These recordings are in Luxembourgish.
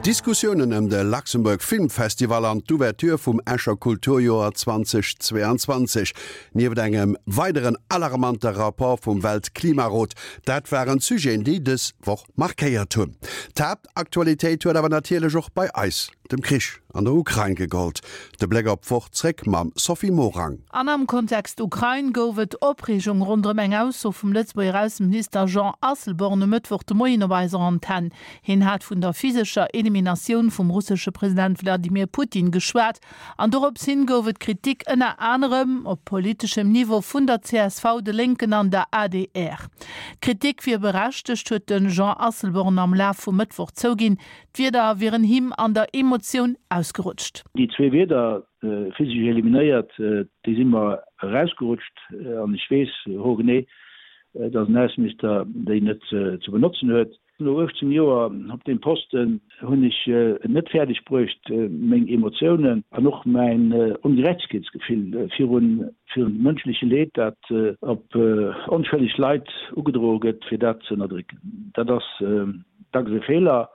Diskussiounen ëm de Luxembourg Film Festival an d'Ouverture vum Escher Kulturjoer 2022, nieft engem weideren alarmante Rapport vum Weltklimarot, dat waren d'Sujeten, déi dës Woch markéiert hunn. D'Haaptaktualitéit huet awer natierlech och bei eis dem Krich an der Ukrain gegollt. De Bléck op d'Woch zréck mam Sophie Morang. An am Kontext Ukrain gouf et Opreegung ronderëm eng Ausso vum Lëtzebuerger Ausseminister Jean Asselborn e Mëttwoch de Moien op eiser Antenn. Hien hat vun der physescher Eliminatioun vum russesche President Wladimir Putin geschwat an dorops hin gouf et Kritik ënner anerem op politeschem Niveau vun der csv, de Lénken an der adr. D'Kritik wier berechtegt, huet de Jean Asselborn am Laf vum Mëttwoch zouginn. D'Wierder wieren him an der Emotioun ausgerutscht. Déi zwee Wierder, physesch eliminéiert, déi si mer erausgerutscht. An ech weess hoergenee, datt en Ausseminister déi net ze benotzen huet. No 18 Joer op deem Posten hunn ech et net fäerdeg bruecht, meng Emotiounen an och mäin Ongerechtegkeetsgefill virun dem mënschleche Leed, dat op onschëlleg Leit ugedroe gëtt, fir dat ze ënnerdrécken. Dat ass dacks e Feeler,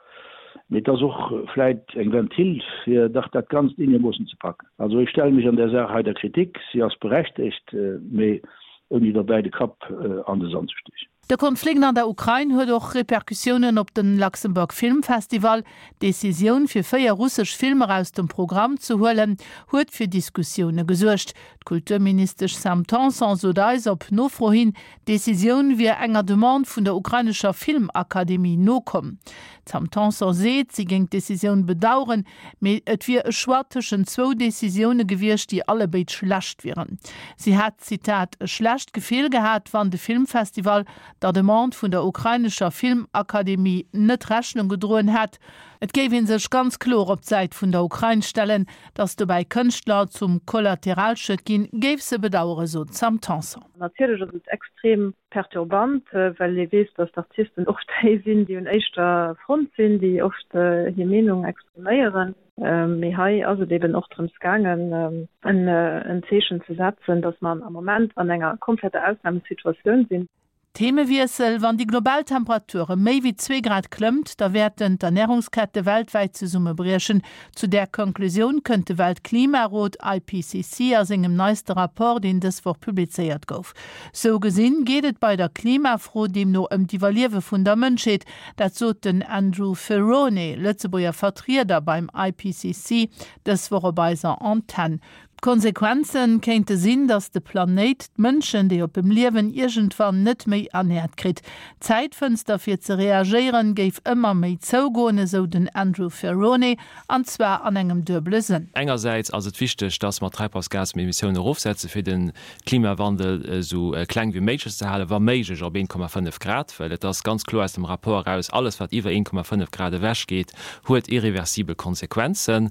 mee et ass och vläit eng Ventil, fir dach dat Ganzt eenegermoossen ze packen. Also ech stelle mech an där Saach hei der Kritik, si ass berechtegt, mee ouni derbäi de Kapp an de Sand ze stiechen. De Konflikt an der Ukrain huet och Repercussiounen op den Luxembourg Film Festival. D'Decisioun fir 4 russesch Filmer aus dem Programm ze huelen, huet fir Diskussioune gesuergt. D'Kulturministesch Sam Tanson sot eis op Nofro hin, d'Decisioun wier enger Demande vun der ukrainescher Filmakademie nokomm. D'Sam Tanson seet, si géing d'Decisioun bedaueren, Mee et wier e Choix tëschent zwou Decisioune gewiescht, déi allebéid schlecht wieren. Si hätt, Zitat, e schlecht Gefill gehat, wann de Filmfestival der Demande vun der ukrainescher Filmakademie net Rechnung gedroen hätt. Et géif ee sech ganz kloer op d'Säit vun der Ukrain stellen. Datt dobäi Kënschtler zum Kollateralschued ginn, géif se bedaueren, sot d'Sam Tanson. Natierlech ass et extrem perturbant, well ee weess, datt d'Artisten oft déi sinn, déi un éischter Front sinn, déi oft hir Meenung expriméieren. Mee hei ass et eben och drëms gaangen, en Zeechen ze setzen, datt mer am Moment an enger kompletter Ausnamesituatioun sinn. Themewiessel, Wann déi global Temperatur ëm méi wéi zwee Grad klëmmt, da wäerten d'Ernärungskette weltwäit zesummebriechen. Zu där Konklusioun kënnt de Weltklimarot, IPCC, a sengem neiste Rapport, deen dës Woch publizéiert gouf. Sou gesinn geet et bei der Klimafro deemno ëm d'Iwwerliewe vun der Mënschheet. Dat sot den Andrew Ferrone, Lëtzebuerger Vertrieder beim IPCC, dës Woch op eiser Antenn. D'Konsequenze kéinte sinn, datt de Planéit d'Mënschen, déi op em liewen, iergendwann net méi ernäert kritt. D'Zäitfënster fir ze reagéieren géif ëmmer méi zougoen, esou den Andrew Ferrone, an zwar an engem duebele Sënn. Engersäits ass et wichteg, datt mer d'Treibhausgasemissioune erofsetze fir de Klimawandel esou kleng wéi méiglech ze halen, wa méiglech op 1,5 Grad, well et ass ganz kloer aus dem Rapport eraus, alles wat iwwer 1,5 Grad ewech geet, huet irreversibel Konsequenzen.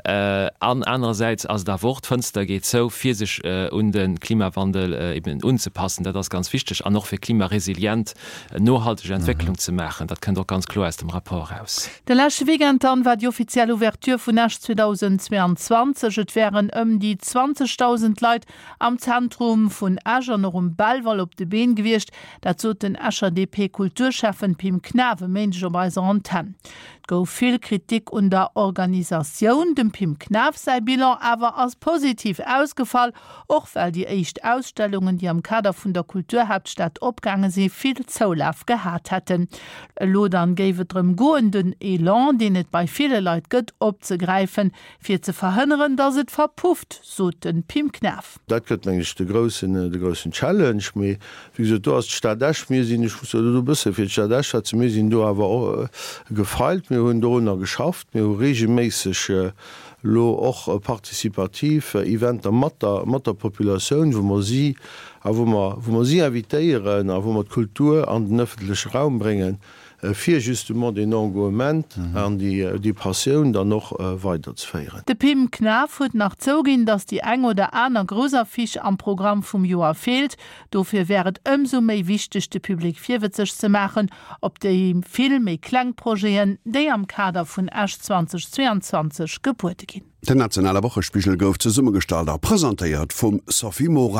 An anerersäits ass et awer och, d'Fënster geet zou, fir sech un de Klimawandel eben unzepassen. Dat ass ganz wichteg. An och fir klimaresilient, nohalteg Entwécklung ze maachen. Dat kënnt och ganz kloer aus dem Rapport eraus. De leschte Weekend dann war déi offiziell Ouverture vun Esch 2022. Et wären ëm déi 20.000 Leit am Zentrum vun Esch an och um Belval op de Been gewiescht. Dat sot den Escher DP-Kulturschäffen Pim Knaff e Méindeg op eiser Antenn. Et gouf vill Kritik un der Organisatioun. Dem Pim Knaff säi Bilan awer ass positiv ausgefall, och well déi éischt Ausstellungen, déi am Kader vun der Kulturhaaptstad opgaange si, vill Zoulaf gehat hätten. Elo dann géif et drëm goen, den Elan, deen et bei ville Leit gëtt, opzegräifen, fir ze verhënneren, datt et verpufft, sot de Pim Knaff. Dat gëtt, meng ech, de groussen, de groussen Challenge. Mee wéi gesot, do ass d'Stad Esch, mir sinn, ech muss elo do e bësse fir d'Stad Esch schwätzen, mir sinn do awer och gefeilt, mir hunn dorunner geschafft, mir hu reegelméisseg elo och participativ Eventer mat der, mat der Populatioun, wou mer si a wou mer, wou mer si invitéieren a wou mer d'Kultur an den ëffentleche Raum bréngen, fir justement deen Engouement an déi Passioun dann och weiderzeféieren. De Pim Knaff huet nach zouginn, datt déi eng oder aner grouss Affiche am Programm vum Joer feelt. Dofir wär et ëmsou méi wichteg, de Public virwëtzeg ze maachen op déi vill méi kleng Projeten, déi am Kader vun Esch 2022 gebuede ginn. Den nationale Wochespigel gouf zesummegestallt a presentéiert vum Sophie Morang.